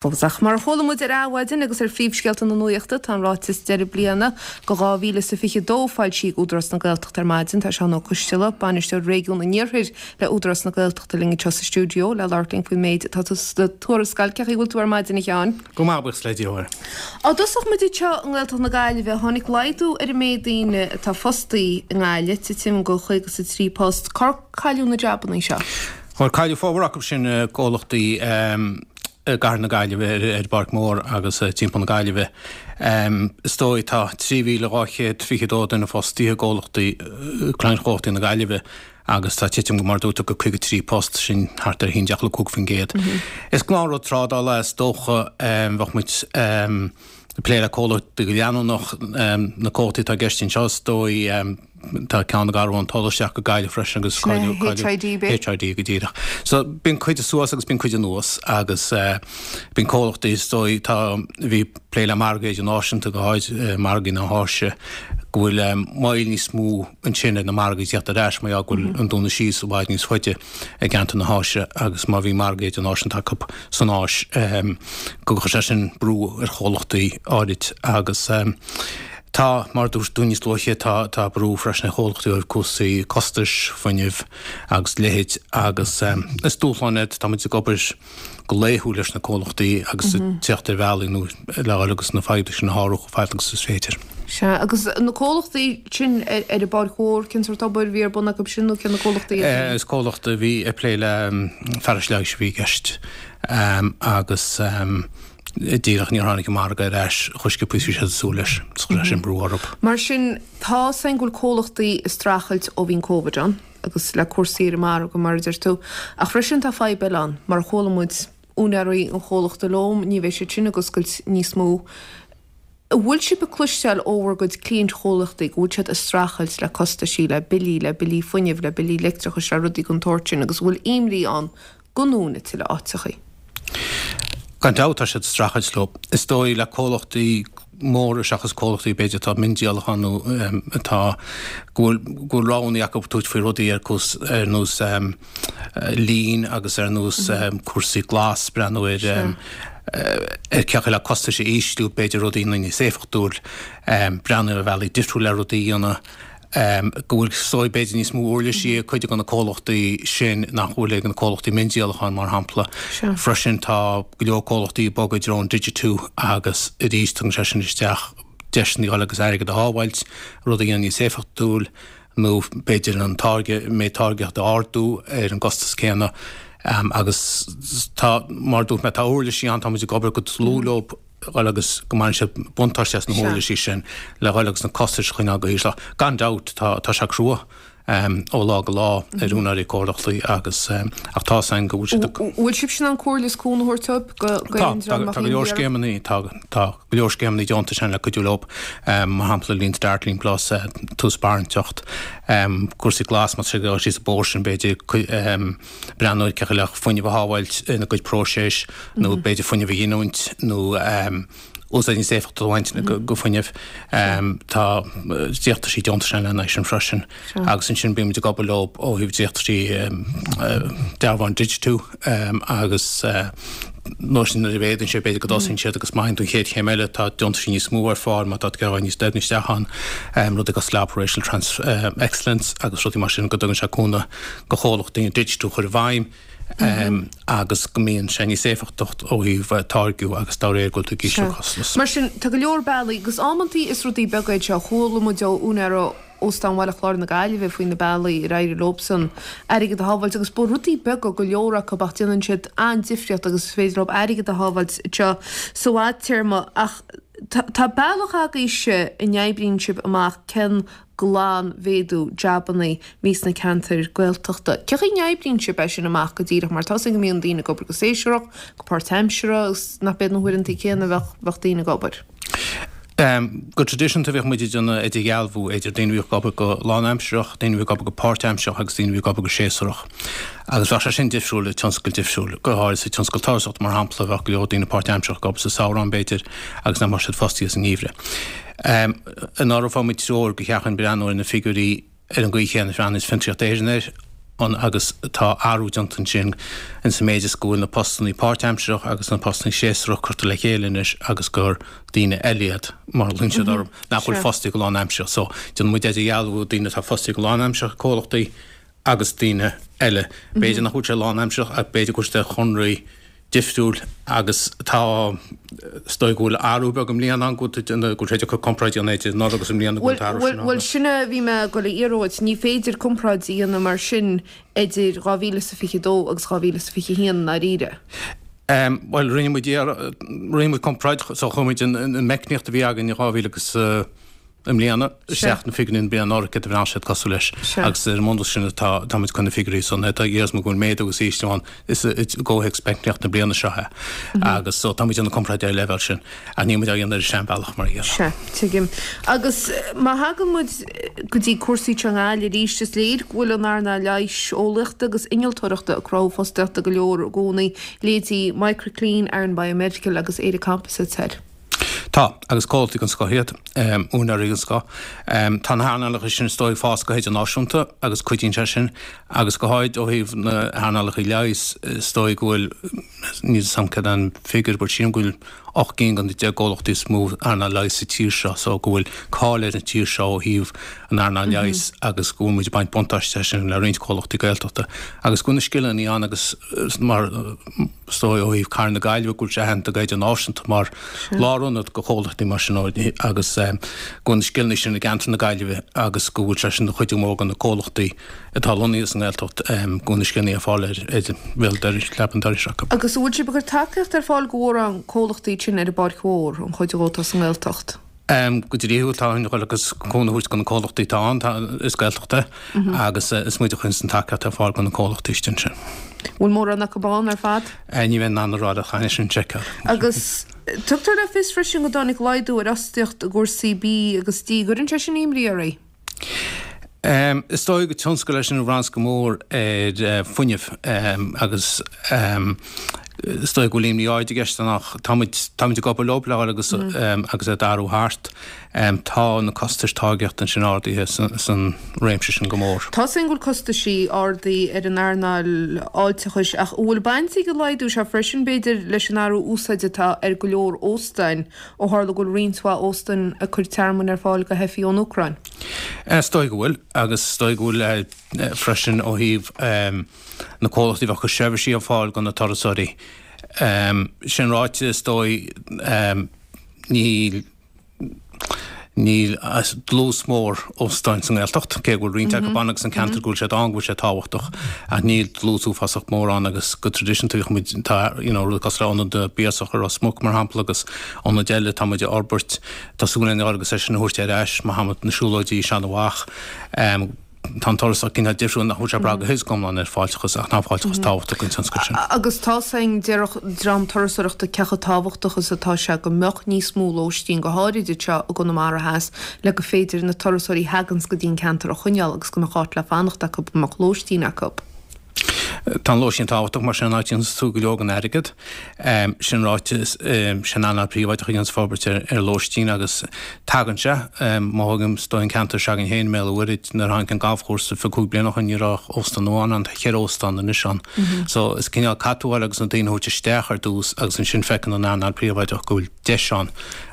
Fós. Ach mar a chuala muid ar Adhmhaidin agus ar phríomhscéalta na nuachta, tá an ráiteas deireadh bliana do 2022 foilsithe ag Údarás na Gaeltachta ar maidin. Tá Seán Ó Coisteala, Bainisteoir Réigiún an Iarthair le Údarás na Gaeltachta linn anseo sa stiúideo le labhairt linn faoin méid atá sa tuarascáil. Cén chaoi a bhfuil tú ar maidin, a Sheáin? Go maith, buíochas le Dia, a Mháire. Dá dtosódh muid anseo i nGaeltacht na Gaillimhe, tháinig laghdú ar an méid daoine atá fostaí i nGaillimh, titim go 53 post. Cár cailleadh na jabannaí seo? Bhuel, cailleadh formhór acu sin i gcomhlachtaí i gcathair na Gaillimhe, ar an bPáirc Mhór agus timpeall na Gaillimhe. Is dóigh tá 3,222 duine fostaithe i gcomhlachtaí, cliantchomhlachtaí na Gaillimhe agus tá titim, mar a dúirt tú, go 53 post, sin thart ar 11.5%. Is gnáthrud trádála é is dócha, bheadh muid ag plé le comhlachtaí go leanúnach, na comhlachtaí atá i gceist anseo is dóigh, Tá ceann ag athrú an toll isteach go Gaillimh freisin agus Sin é HID, b'é? HID go díreach. So bíonn cuid suas agus bíonn cuid anuas agus bíonn comhlachtaí is dóigh tá bhí plé le margaí idirnáisiúnta go háid margaí na hÁise go bhfuil moill níos mó ansin ar na margaí tíocht ar ais mar gheall go bhfuil an dúnadh síos i bhfad níos faide i gceantar na hÁise agus má bhí margaí idirnáisiúnta acu san Áis go gcuir sé sin brú ar chomhlachtaí áirid agus Tá, mar a dúirt tú níos luaithe, tá, tá brú freisin ar chomhlachtaí ó thaobh cúrsaí costais, fuinnimh agus a leithéid agus is dúshlán iad. Tá muid ag obair go laethúil leis na comhlachtaí agus ag teacht ar bhealaí nua le dhul agus na fadhbanna sin a shárú chomh fada agus is féidir. Sea, agus na comhlachtaí sin ar an bPáirc Mhór, cén sórt obair a bhí ar bun acu sin nó cé na comhlachtaí iad sin? Is comhlacht a bhí ag plé le fearais leighis a bhí i gceist agus Díreach níor tháinig an margadh ar ais chomh sciobtha is bhí siad ag súil leis. Chuir sé sin brú orthu. Mar sin, tá 's againn go bhfuil comhlachtaí ag streachailt ó bhí an Covid ann agus le cúrsaí ar an margadh mar a deir tú. Ach freisin tá fadhb eile ann, mar a chuala muid, úinéirí an chomhlachta Loam, ní bheidh siad sin ag oscailt níos mó. An bhfuil sibh ag cloisteáil ó bhur gcuid cliaint-chomhlachtaí go bhfuil siad ag streachailt le costaisí, le billí, le billí fuinnimh, le billí leictreachais, le rudaí den tsórt sin agus an bhfuil imní ann go ndúnfaí tuilleadh áiteachaí. Gan dabht tá siad ag streachailt leo. Is dóigh le comhlachtaí móra seachas comhlachtaí b'fhéidir atá miondíolachán nó atá go bhfuil go bhfuil roghanna acu tabhairt faoi rudaí ar cús ar nós lean agus ar nós cúrsaí glas breathnú ar ar cé acu le costais a ísliú b'fhéidir rudaí a dhéanamh níos éifeachtúil breathnú ar bhealaí difriúil le rudaí a dhéanamh. go bhfuil is dóigh b'fhéidir níos mó uirlisí ag cuid de na comhlachtaí sin nach bhfuil ag na comhlachtaí miondíolacháin, mar shampla. Freisin tá go leor comhlachtaí ag bogadh i dtreo an digitiú agus arís tugann sé sin isteach deiseanna dhul agus airgead a shábháilt, rud a dhéanamh níos éifeachtúil nó b'fhéidir an táirge, méid táirgeachta a ardú ar an gcostas céanna agus tá, mar a dúirt mé, tá uirlisí ann, tá muid ag obair go dlúth leo. dhul agus go mbaineann siad buntáiste as na huirlisí sin le dhul agus na costais a choinneáil go híseal. Gan dabht tá tá sé crua ó lá go lá ar úinéirí comhlachtaí agus ach tá 's againn go bhfuil siad ag. Bhfuil sibhse in ann comhairle is cúnamh a thabhairt dóibh go go Tá, tá tá go leor scéimeanna tá tá go leor scéimeanna deontais ann le cuidiú leo, mar shampla Lean Start, Lean Plus, tús barainteacht, cúrsaí glas má tá siad ag dul síos an bóthar sin b'fhéidir breathnú ar cé chaoi le fuinneamh a shábháilt ina gcuid próiseas nó b'fhéidir fuinneamh a ghiniúint nó úsáid níos éifeachtaí a bhaint go fuinneamh. Tá dréachtaí deontais ann lena aghaidh sin freisin agus ansin bímid ag obair leo ó thaobh dréachtaí dearbháin digitiú agus nuair sin nuair a mhéadaíonn sé b'fhéidir go dtosaíonn siad agus má théann tú an chéad chéim eile tá deontaisí níos mó ar fáil má tá tú ag dul níos doimhne isteach ann, rudaí cosúil le Operational Trans Excellence agus rudaí mar sin go dtugann sé cúnamh go chomhlachtaí an digitiú a chur i bhfeidhm agus go mbíonn sé níos éifeachtacht ó thaobh táirgiú agus dá réir go bhfuil tú ag ísliú costas. Mar sin, tá go leor bealaí, agus amantaí is rudaí beaga iad seo, chuala muid ó úinéir Óstán Bhaile Chláir na Gaillimhe faoi na bealaí ar éirigh leobsan airgead a shábháilt agus ba rudaí beaga go leor acu ach déanann siad an-difríocht agus is féidir leo airgead a shábháilt anseo sa bhfadtéarma ach tá bealach agaibhse a n-oibríonn sibh amach cén glanmhéadú jabannaí a bhí sna ceantair Gaeltachta. Cé chaoi a n-oibríonn sibh é sin amach go díreach mar tá's againn go mbíonn daoine ag obair go séasúrach, go páirtaimseartha agus nach b'iad na huaireanta céanna a bheadh bheadh daoine ag obair. Go traidisiúnta bhíodh muid ag déanamh idirdhealbhú idir daoine a bhíodh ag obair go lánaimsearach, daoine a bhí ag obair go páirtaimsearach agus daoine a bhí ag obair go séasúrach. Agus bheadh sé sin difriúil i tionscail difriúil, go háirid sa tionscal turasóireachta mar shampla bheadh go leor daoine páirtaimsearach ag obair sa samhradh b'fhéidir agus nach mbeadh siad fostaithe sa ngeimhreadh. Anuraidh fuair muid treoir gur cheart dúinn breathnú ar na figiúirí ar an gcaoi chéanna a bhreathnaíos Fiontraíocht Éireann air. ann agus tá athrú déanta ansin in sa méid is go bhfuil na postannaí páirtaimsearach agus na postannaí séasúrach curtha le chéile anois agus gur daoine eile iad, mar a ghlaonn siad orthu, nach bhfuil fostaithe go lánaimsearach. So, déanann muid idirdhealú daoine atá fostaithe go lánaimsearach ag comhlachtaí agus daoine eile. B'fhéidir nach bhfuil sé lánaimsearach ach b'fhéidir go bhfuil siad ar chonraí difriúil agus tá, is dóigh go bhfuil athrú beag i mbliana ann, go bhfuil sé deacair comparáid a dhéanamh idir anuraidh agus i mbliana go bhfuil an t-athrú sin ann. Bhuel, sin a bhí mé ag dul a iarraidh uait, ní féidir comparáid a dhéanamh mar sin idir 2022 agus 2021 i ndáiríre. Bhuel, rinne muid, rinne muid comparáid, so chuir muid an meicníocht a bhí againn in 2000 agus, i mbliana, isteach na figiúirí na bliana anuraidh céard a bhí siad cosúil leis agus ar an mbunús sin atá táimid chun na figiúirí san tá fhios go bhfuil méadú agus ísliú ann is i gcomhthéacs meicníocht na bliana seo é agus so táimid ag déanamh comparáid ar an leibhéal sin ach níl muid á dhéanamh ar an seanbhealach mar a déarfá. Sea, tuigim. Agus má thagann muid go dtí cúrsaí anseo i nGaillimh arís, is léir go bhfuil an earnáil leighis, eolaíochta agus innealtóireachta ag cruthú fostaíochta go leor i gcónaí, leithéidí Microclean, Aran Biomedical agus Éire Composites thoir. Tá, agus comhlachtaí den scoth iad, úinéirí den scoth. Tá na hearnálacha sin is dóigh ag fás go hidirnáisiúnta agus cuidíonn sé sin, agus go háirid ó thaobh na hearnálacha leighis, is dóigh go bhfuil, níl 'fhios a'm céard é an figiúr, but sílim go bhfuil 8 gcinn den 10 gcomhlachtaí is mó earnáil leighis sa tír seo, so go bhfuil cáil ar an tír seo ó thaobh an earnáil leighis agus go bhfuil muid ag baint buntáiste as sin le roinnt comhlachtaí Gaeltachta agus go bhfuil na scileanna ann agus mar Is dóigh ó thaobh Cathair na Gaillimhe go bhfuil sé aitheanta go hidirnáisiúnta mar lárionad do chomhlachtaí mar sin agus go bhfuil na scileanna sin i gceantar na Gaillimhe agus go bhfuil sé sin ina chuidiú mór do na comhlachtaí atá lonnaithe sa nGaeltacht go bhfuil na scileanna ar fáil ar bhéal dorais, leaba an dorais acu. Agus an bhfuil sibh ag cur tacaíocht ar fáil do mhórán comhlachtaí sin ar an bPáirc Mhór, an chuid dhó atá sa nGaeltacht? Go dlíthiúil tá an ghoil agus cúnamh a thabhairt do na comhlachtaí atá ann, tá, is Gaeltacht é agus is muid a chuireanns an tacaíocht ar fáil do na comhlachtaí istigh ansin. Bhfuil mórán acu ann ar fad? Ní bheinn in ann a rá leat, chaithfinn sin a sheiceáil. Agus tugtar le fios freisin go dtáinig laghdú ar fhostaíocht i gcúrsaí bídh agus dí. An gcuireann sé sin imní oraibh? Is dóigh gur tionscal é sin a bhraitheanns go mór ar fuinneamh agus is dóigh go bhfuil imní áirid i gceist ann ach táimid, táimid ag obair leo le fháil agus agus é d'athrú thart. Tá na costais táirgeachta ansin ardaithe san réimse sin go mór. Tá 'fhios a'inn go bhfuil costaisí ardaithe ar an earnáil fháilteachais ach an bhfuil baint ag an laghdú seo freisin b'fhéidir leis an athrú úsáide atá ar go leor óstáin ó tharla go bhfuil roinnt mhaith óstáin ag cur tearmainn ar fáil do theifigh ón Úcráin? Is dóigh go bhfuil, agus is dóigh go bhfuil freisin ó thaobh na comhlachtaí a bheadh ag cur seirbhísí ar fáil do na turasóirí. Sin ráite, is dóigh níl níl dlús mór óstáin sa nGaeltacht, cé go bhfuil roinnt acu ann agus an ceantar go bhfuil siad ann go bhfuil sé tábhachtach, ach níl dlús uafásach mór ann agus go traidisiúnta bhíodh muid, tá you know rud cosúil le Ionad na bPiarsach i Ros Muc mar shampla agus ionaid eile atá muid a fhorbairt. Tá súil againn agus é sin a thabhairt ar ais, mar shampla na siúlóidí Seanadh Mhach. Tá an turasóir cineál difriúil nach bhfuil sé ag brath go huile is go hiomlán ar fáilteachas ach tá an fáilteachas tábhachtach don tionscal sin. Agus tá 'fhios a'inn, déarfadh dream turasóireachta cé chomh tábhachtach is atá sé go mbeadh níos mó lóistín, go háirid anseo i gConamara Theas, le go féidir na turasóirí a thaganns go dtí an ceantar a choinneáil agus go mbeadh áit le fanacht acu, go mbeadh lóistín acu. Tá an lóistín tábhachtach mar sin an áit a dhéananns tú go leor den airgead. Sin ráite, is an earnáil príobháideach a dhéananns forbairt ar lóistín agus tagann sé. Má thógaim is dóigh an ceantar s'againn féin i mBéal an Mhuirthead, nuair a tháinig an galfchúrsa 25 bliain ó shin ní raibh ach óstán amháin ann, tá cheithre óstán anois ann. So is cineál caithfidh tú a fháil agus na daoine a thabhairt isteach ar dtús agus ansin feiceann an earnáil príobháideach go bhfuil deis ann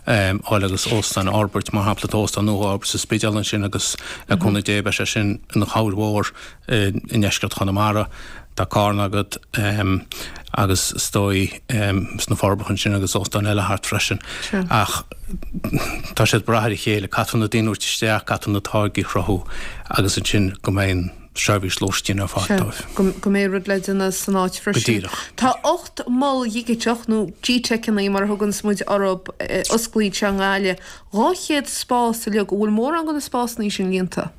fháil agus óstán a fhorbairt. Mar shampla tá óstán nua á fhorbairt sa Spidéal ansin agus le cúnamh Dé beidh sé sin ina chabhair mhór i ndeisceart Chonamara. Tá Carna agat agus is dóigh sna Forbacha ansin agus óstáin eile thart freisin. Ach tá siad ag brath ar a chéile. Caithfear na daoine a thabhairt isteach, caithfear na táirgí a chruthú agus ansin go mbeidh an seirbhís lóistín ar fáil dóibh. Go mbeidh rud le déanamh san áit freisin. Go díreach. Tá 8 mol dhigiteach, nó G-Teiceanna mar a thuganns muid orthu, osclaithe anseo i nGaillimh. 200 spás uilig. An bhfuil mórán de na spásanna sin líonta?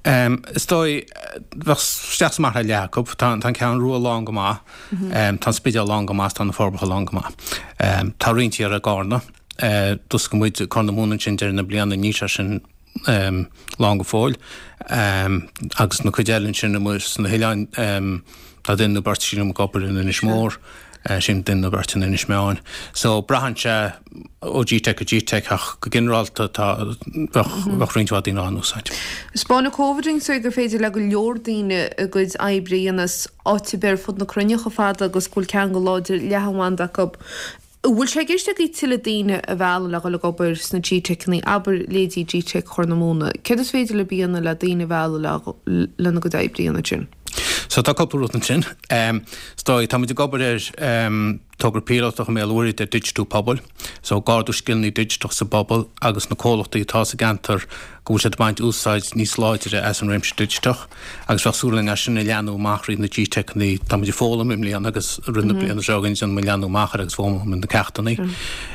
Is dóigh, bheadh isteach is amach le leath acu. Tá an Cheathrú Rua lán go maith, tá an Spidéal lán go maith, tá na Forbacha lán go maith. Tá roinnt thiar i gCarna. D'oscail muid Corr na Móna ansin deireadh na bliana, níl sé sin lán go fóill. Agus na cuid eile ansin amuigh sna hoileáin, tá duine nó beirt sílim ag obair in Inis Mór. Sin duine nó beirt in Inis Meáin. So braitheann sé ó GTeic go GTeic ach go ginearálta tá, bheadh, bheadh roinnt mhaith daoine á n-úsáid. Spáineann Covid dúinn so gur féidir le go leor daoine a gcuid oibre a dhéanamh as áit ar bith ar fud na cruinne chomh fada agus go bhfuil ceangal láidir leathanbhanda acu. An bhfuil sé i gceist agaibh tuilleadh daoine a mhealladh le dhul ag obair sna GTeiceanna, abair leithéidí GTeic Chorr na Móna? Céard is féidir libh a dhéanamh le daoine a mhealladh le lena gcuid oibre a dhéanamh ansin? So tá cúpla rud ansin. Is dóigh, tá muid ag obair ar togra píolótach i mBéal an Mhuirthead ar digitiú pobail. So ag ardú scileanna digiteach sa bpobal agus na comhlachtaí atá sa gceantar go bhfuil siad ag baint úsáid níos láidre as an réimse digiteach agus bheadh súil againn é sin a leathnú amach thríd na GTeiceanna. Tá muid ag foghlaim i mbliana agus rith na bliana seo chugainn déanfaidh muid leathnú amach air agus foghlaimeoidh muid na ceachtanna.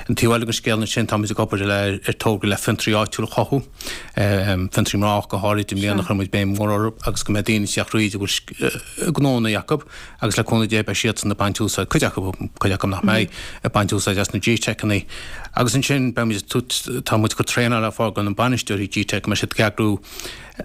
An taobh eile den scéal ansin tá muid ag obair le ar togra le fiontraí áitiúil a chothú, fiontraí mná ach go háirid i mbliana chuir muid béim mhór orthu agus go mbeidh daoine ag teacht thríd a bhfuil gnónna acu Agus le cúnamh Dé beidh siadsan ag baint úsáid, cuid acu, cuid acu nach mbeidh, ag baint úsáid as na GTeiceanna. Agus ansin beidh muid, tá muid ag cur traenáil ar fáil do na bainisteoirí GTeic, go mbeidh siad ag eagrú,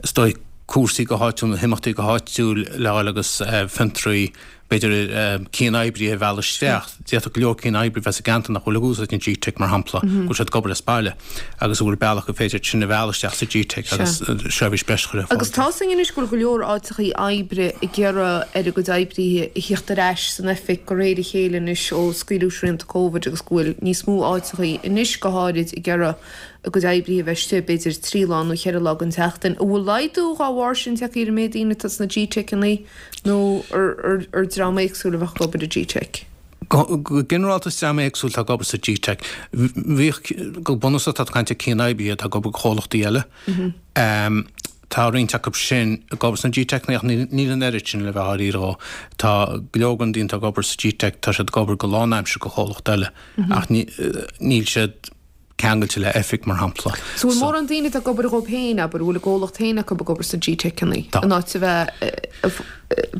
is dóigh, cúrsaí go háitiúil nó himeachtaí go háitiúil le fháil agus fiontraí, b'fhéidir cian-oibrithe a mhealladh isteach. D'fhéadfadh go leor cian-oibrithe a bheith sa gceantar nach bhfuil ag úsáid an GTeic, mar shampla, go bhfuil siad ag obair as baile. agus an bhfuil bealach gur féidir sin a mhealladh isteach sa GTeic agus seirbhís breise a chur ar fáil. Agus tá 'fhios againn anois go bhfuil go leor áiteachaí oibre ag iarraidh ar a gcuid oibrithe a thíocht ar ais san oifig de réir a chéile anois ó scaoileadh srianta Covid agus go bhfuil níos mó áiteachaí anois go háirid ag iarraidh a gcuid oibrithe a bheith istigh b'fhéidir 3 lá nó 4 lá den tseachtain. An bhfuil laghdú dhá bharr sin tagtha ar an méid daoine atá sna GTeiceanna nó ar dream éagsúil a bheadh ag obair i GTeic? Go ginearálta is dream éagsúil atá ag obair sa GTeic. Bhíodh, go bunúsach tá tú ag caint ar cian-oibrithe atá ag obair do chomhlachtaí eile. Tá roinnt acu sin ag obair sna GTeiceanna ach níl an oiread sin le bheith dáiríre dhó. Tá go leor den daoine atá ag obair sa GTeic, tá siad ag obair go lánaimseartha do chomhlacht eile ach níl siad ceangailte le oifig, mar shampla. So bhfuil mórán daoine atá ag obair dhóibh féin, abair, a bhfuil a gcomhlacht féin acu ag obair sna GTeiceanna, in áit a bheith,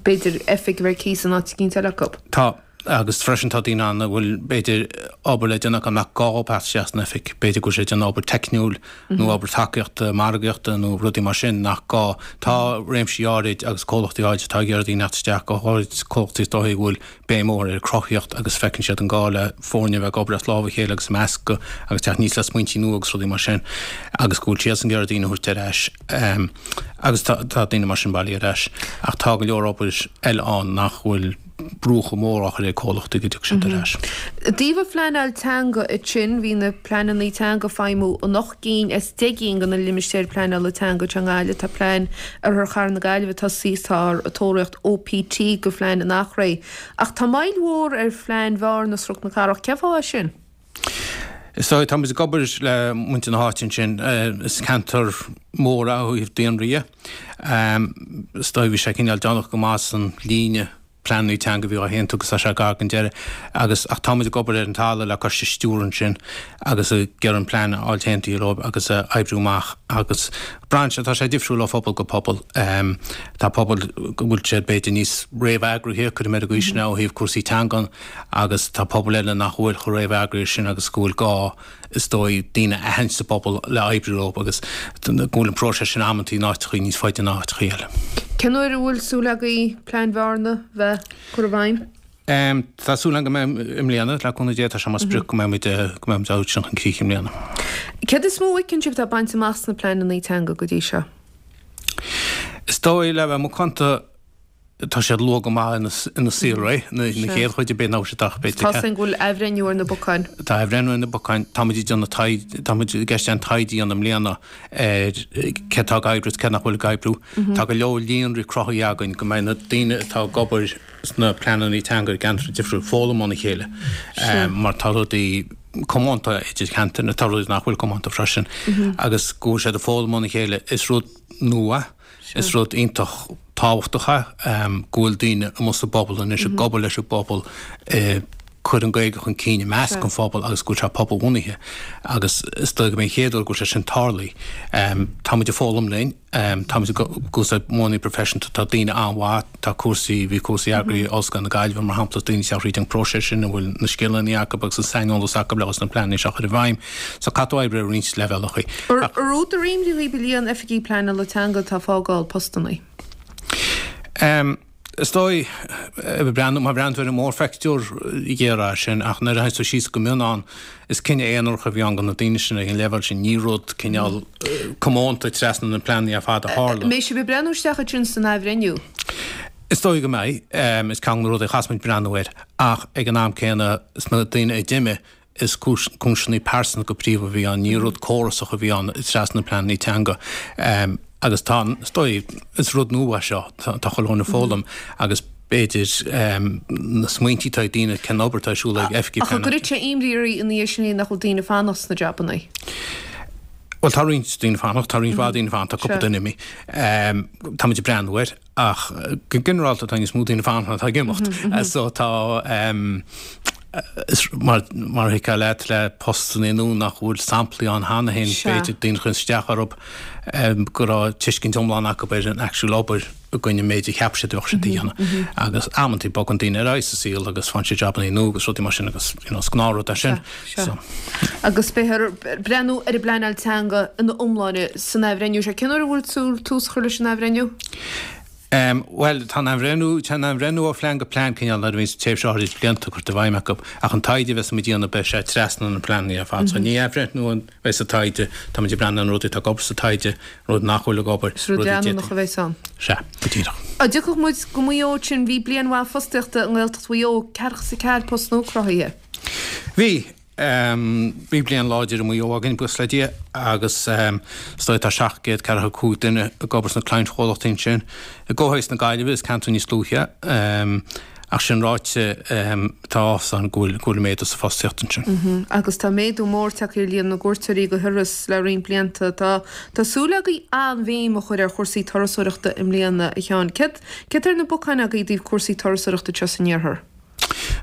b'fhéidir, oifig a bheith ar cíos in áit eicínt eile acu? Tá, agus freisin tá daoine ann a bhfuil, b'fhéidir, obair le déanamh acu nach gá dhóibh teacht isteach san oifig. B'fhéidir go bhfuil siad ag déanamh obair teicniúil nó obair tacaíochta, margaíochta nó rudaí mar sin nach gá. Tá réimsí áirid agus comhlachtaí áirid atá ag iarraidh daoine a theacht isteach, go háirid comhlachtaí is dóichí a bhfuil béim mhór ar chruthaíocht agus feiceann siad an gá le foirne a bheith ag obair as lámh a chéile agus ag meascadh agus teacht aníos le smaointí nua agus rudaí mar sin agus go bhfuil siadsan ag iarraidh daoine a thabhairt ar ais agus tá daoine mar sin bailithe ar ais ach tá go leor obair eile ann nach bhfuil brú chomh mór á chur ar comhlachtaí go dtiocfaidh siad ar ais. I dtaobh an phleanáil teanga ansin, bhí na pleananna teanga ag feidhmiú in 8 gcinn as 10 gcinn de na limistéir pleanála teanga anseo i nGaillimh. Tá plean Oirthear Chathair na Gaillimhe tosaithe, táthar ag tóraíocht OPT do phlean an Eachréidh. Ach tá moill mhór ar phlean Bhearna is Chnoc na Cathrach. Cén fáth é sin? Is dóigh, tá muid ag obair le muintir na háite ansin. Is ceantar mór é ó thaobh daonra dhe. Is dóigh bhí sé cineál déanach go maith san líne pleananna teanga a bhí á haontú agus tá sé gar don deireadh agus ach tá muid ag obair ar an talamh le coiste stiúrtha ansin agus ag iarraidh an plean a fháil aontaithe leo agus a oibriú amach agus braitheann sé, tá sé difriúil ó phobal go pobal. Tá pobail go bhfuil siad b'fhéidir níos réamheagraithe, cuirfidh mé ar an gcaoi sin é, ó thaobh cúrsaí teangan agus tá pobail eile nach bhfuil chomh réamheagraithe sin agus go bhfuil gá, is dóigh, daoine a aithint sa bpobal le oibriú leo agus go bhfuil an próiseas sin amantaí in áiteachaí níos faide ná áiteachaí eile. Cén uair a bhfuil súil agaibh Plean Bhearna bheith curtha i bhfeidhm? Tá súil agam go mbeidh i mbliana, le cúnamh Dé, tá sé mar sprioc go mbeidh muid, go mbeidh muid á thabhairt sin chun críche i mbliana. Céard is mó a fheiceann sibh atá bainte amach sna pleananna teanga go dtí seo? Is dóigh, le bheith macánta, tá siad luath go maith ina saolré, na chéad chuid, b'fhéidir nach bhfuil siad ach b'fhéidir. Tá a fhios againn go bhfuil athbhreithniú ar na bacáin. Tá athbhreithniú ar na bacáin. Tá muid ag déanamh taighde, tá muid i gceist an taighde a dhéanamh i mbliana ar cé atá ag oibriú is cé nach bhfuil ag oibriú. Tá go leor líonraí cruthaithe againn go mbeidh na daoine atá ag obair sna pleananna teanga i gceantair difriúil ag foghlaim óna chéile mar tá rudaí comónta idir cheantair nó tá rudaí nach bhfuil comónta freisin agus go bhfuil siad ag foghlaim óna chéile. Is rud nua, is rud iontach tábhachtach é go bhfuil daoine amuigh sa bpobal anois ag obair leis an bpobal ag cur an Ghaeilge chun cinn i measc an phobail agus go bhfuil sé pobalbhunaithe agus is dóigh go mbeidh an chéad uair go bhfuil sé sin tarlaithe. Tá muid ag foghlaim linn. Táimid ag úsáid modhanna proifisiúnta, tá daoine an-mhaith, tá cúrsaí, bhí cúrsaí eagraithe ag Ollscoil na Gaillimhe mar shampla, daoine ag teacht thríd an bpróiseas sin a bhfuil na scileanna acu agus an saineolas acu le na pleananna seo a chur i bhfeidhm. So caithfidh tú oibriú ar roinnt leibhéalacha. Ar údar imní dhaoibh an líon oifigigh pleanála teanga atá ag fágáil postanna? Is dóigh, breathnú, má bhreathnaíonn tú ar an mórphictiúr, ghéará sin, ach nuair a théann tú síos go mion ann, is cinneadh aonarach a bhí ann do na daoine sin ag an leibhéal sin, ní rud cineál comónta trasna na pleananna ar fad a tharla. An mbeidh sibh ag breathnú isteach ansin san athbhreithniú? Is dóigh go mbeidh. Is ceann de na rudaí a chaithfeas muid breathnú air. Ach ag an am céanna, sna daoine a d'imigh, Is cúiseanna pearsanta go príomha a bhí ann, ní rud córasach a bhí ann trasna na pleananna teanga. Agus tá, is dóigh, is rud nua é seo, tá chuile dhuine ag foghlaim agus b'fhéidir na smaointí atá ag daoine cén obair atá ar siúl ag oifigigh Ach an gcuirfidh sé imní oraibh ina dhiaidh sin nach bhfuil daoine ag fanacht sna jabanna? Bhuel, tá roinnt daoine ag fanacht, tá roinnt mhaith daoine ag fanacht, tá cúpla duine imithe. Táimid ag breathnú air. Ach go ginearálta tá níos mó daoine ag fanacht ná atá ag imeacht. So tá, is mar mar a thuigfeá leat le postanna nua nach bhfuil samplaí ann cheana féin, b'fhéidir daoine a chuireann isteach orthu go raibh tuiscint iomlán acu ar an actual obair i gcoinne an méid a cheap siad a bheadh siad a dhéanamh. Agus amantaí bogann daoine ar aghaidh sa saol agus faigheann siad jabannaí nua agus rudaí mar sin agus you know is gnáthrud é sin. Sea. Agus beifear ag breathnú ar an bpleanáil teanga ina iomláine san athbhreithniú seo. Cén uair a bhfuil súil tús a chur leis an athbhreithniú? Bhuel, tá an athbhreithniú, tá an athbhreithniú ó phlean go plean cineál nuair a bhíonns tréimhse áirid blianta curtha i bhfeidhm acu, ach an taighde a bheas muid a dhéanamh beidh sé trasna na pleananna ar fad. So ní athbhreithniú a bheidh sa taighde, tá muid ag breathnú ar na rudaí atá ag obair sa taighde, rud nach bhfuil ag obair, Is rud leanúnach a bheas ann. Sea, go díreach. Dá dtiocfadh muid go Maigh Eo ansin, bhí bliain mhaith fostaíochta i nGaeltacht Mhaigh Eo, ceathracha is a ceathair post nua cruthaithe. Bhí. Bhí bliain láidir i Maigh Eo againn, buíochas le Dia, agus is dóigh tá 745 duine ag obair sna cliantchomhlachtaí ansin. I gcomhthéacs na Gaillimhe, is ceantar níos dlúithe é, ach sin ráite, tá áthas ann go bhfuil go bhfuil méadú sa phostaíocht ansin. Agus tá méadú mór tagtha ar líon na gcuairteoirí go hIorras le roinnt blianta. Tá tá súil agaibh an-bhéim a chur ar chúrsaí turasóireachta i mbliana, a Sheáin. Céard céard tá ar na bacáin agaibh i dtaobh cúrsaí turasóireachta anseo san iarthar?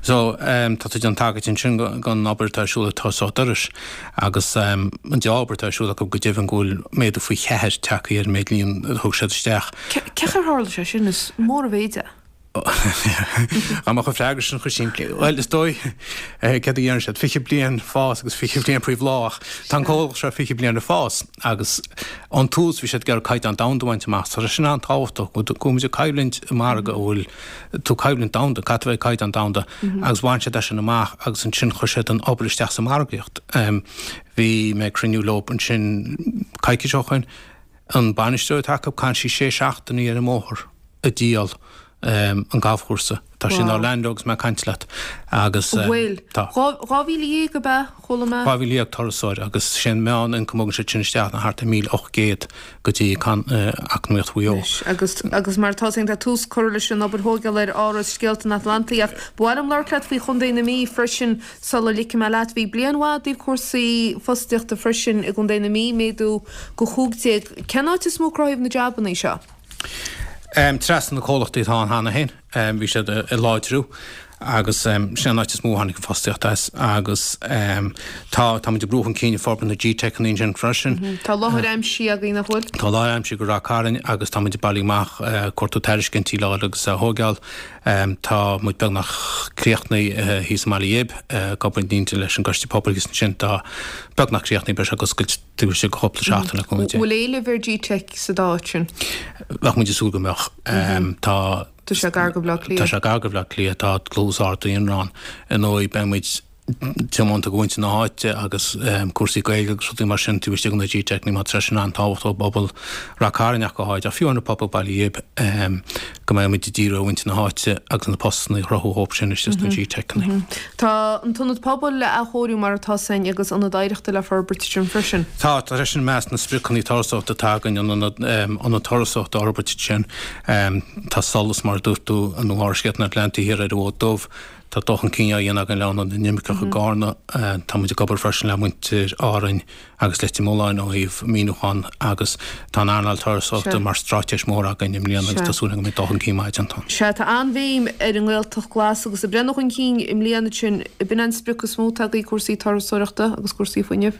So, tá tú ag déanamh tagairt ansin don obair atá ar siúl ag Turasóireacht Iorrais agus an dea-obair atá ar siúl acu go deimhin go bhfuil méadú faoi cheathair tagtha ar an méid líon a thug siad isteach. Cén chaoi ar tharla sé sin? Is mór an mhéid é. Dá mbeadh an freagra sin chomh simplí. Bhuel, is dóigh, céard a deireann siad, 20 bliain fás agus 20 bliain faoi bhláth ach tá an comhlacht seo 20 bliain ag fás agus ón tús bhí siad ag iarraidh caighdeán domhanda a bhaint amach. Tá sé sin an-tábhachtach go bhfuil muid ag coimhlint i margadh a bhfuil tú coimhlint domhanda, caithfidh tú a bheith ag caighdeán domhanda agus bhain siad é sin amach agus ansin chuir siad an obair isteach sa margaíocht. Bhí mé ag cruinniú leo ansin coicís ó shoin, an bainisteoir atá acu, caitheann sí sé seachtainí ar an mbóthar ag díol an galfchúrsa. Tá sí in Orlando agus mé ag caint leat agus Bhfuil? tá. 12,000 ab ea? Chuala mé. 12,000 turasóir agus sé an meán ioncam a thugann siad sin isteach ná thart ar 1,800 go dtí eacnamaíocht Mhaigh Eo. Anois, agus, agus mar atá féin, tá tús curtha leis an obair thógála ar Áras Scéalta an Atlantaigh ach ba mhaith liom labhairt leat faoi Chontae na Mí freisin sula ligfidh mé leat. Bhí bliain mhaith i dtaobh cúrsaí fostaíochta freisin i gContae na Mí, méadú go 15. Cén áit is mó a cruthaíodh na jabannaí seo? Trasna na comhlachtaí atá ann cheana féin. Bhí siad ag láidriú agus sin an áit is mó a tháinig an fostaíocht as agus tá, tá muid ag brú chun cinn ag forbairt na GTeiceanna ansin freisin. Tá láthair aimsithe agaibh, nach bhfuil? Tá láthair aimsithe go Ráth Cairn agus tá muid ag bailiú amach, cuartú tairiscintí le fháil agus a thóigeáil. Tá muid beagnach críochnaithe thíos i mBaile Ghib, ag obair i ndlúth leis an gCoiste Pobail thíos ansin. Tá beagnach críochnaithe, beidh sé ag oscailt taobh istigh de chúpla seachtain le cúnamh Dé. Bhfuil éileamh ar GTeic sa dá áit sin? Bheadh muid ag súil go mbeadh. Tá. Tá sé gar go Baile Átha Cliath. Tá sé gar go Baile Átha Cliath, tá dlús ard daonra ann. Ar ndóigh, beidh muid tiomanta do mhuintir na háite agus cúrsaí Gaeilge agus rudaí mar sin taobh istigh de na GTeiceanna mar tá sé sin an-tábhachtach i bpobal Rath Cairn ach go háirid, ach fiú an pobal Baile Ghib, go mbeidh muid ag díriú ar mhuintir na háite agus na postanna a chruthú dhóibh sin istigh sna GTeiceanna. Tá an t-ionad pobail le athchóiriú mar atá againn agus ionad oidhreachta le forbairt ansin freisin. Tá, tá sé sin i measc na spriocanna turasóireachta atá againn, an ionad turasóireachta a fhorbairt ansin. Tá Solas, mar a dúirt tú, nó Áras Scéalta an Atlantaigh thiar ar an bhFód Dubh. Tá dul chun cinn á dhéanamh againn le Ionad na nImirceach i gCarna. Tá muid ag obair freisin le muintir Árainn agus Leitir Mealláin ó thaobh maoiniúchán agus tá an earnáil turasóireachta mar straitéis mhór againn i mbliana agus tá súil againn go mbeidh dul chun cinn maith déanta ann. Sea, tá an-bhéim ar an nGaeltacht Ghlas agus ag breathnú chun cinn i mbliana ansin, ab in an sprioc is mó atá agaibh, cúrsaí turasóireachta agus cúrsaí fuinnimh?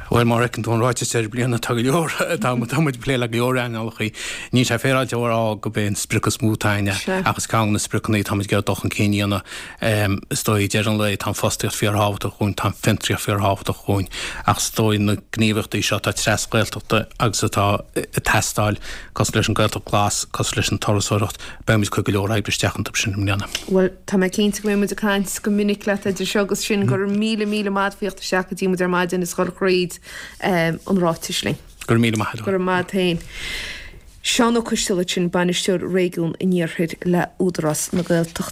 Bhuel, mar a fheiceann tú an ráiteas deireadh bliana, tá go leor, tá muid ag plé le go leor earnálacha. Níl sé féaráilte a rá gurb é an sprioc is mó atá againne, ach is ceann de na spriocanna atá muid ag iarraidh dul chun cinn a dhéanamh. Is dóigh, ag deireadh an lae, tá an fostaíocht fíorthábhachtach dhúinn, tá an fiontraíocht fíorthábhachtach dhúinn, ach is dóigh na gníomhaíochtaí seo atá tras-Ghaeltachta agus atá ag teastáil, cosúil leis an Gaeltacht Glas, cosúil leis an turasóireacht, beidh muid ag cur go leor oibre isteach iontu sin i mbliana. Bhuel, tá mé cinnte go mbeidh muid ag caint go minic leat idir seo agus sin. Go raibh míle, míle maith agat as theacht isteach go dtí muid ar maidin is dhul thríd an ráiteas linn. Go raibh míle maith agat. Go raibh maith agat féin. Seán Ó Coistealbha sin, Bainisteoir Réigiún an Iarthair le Údarás na Gaeltachta.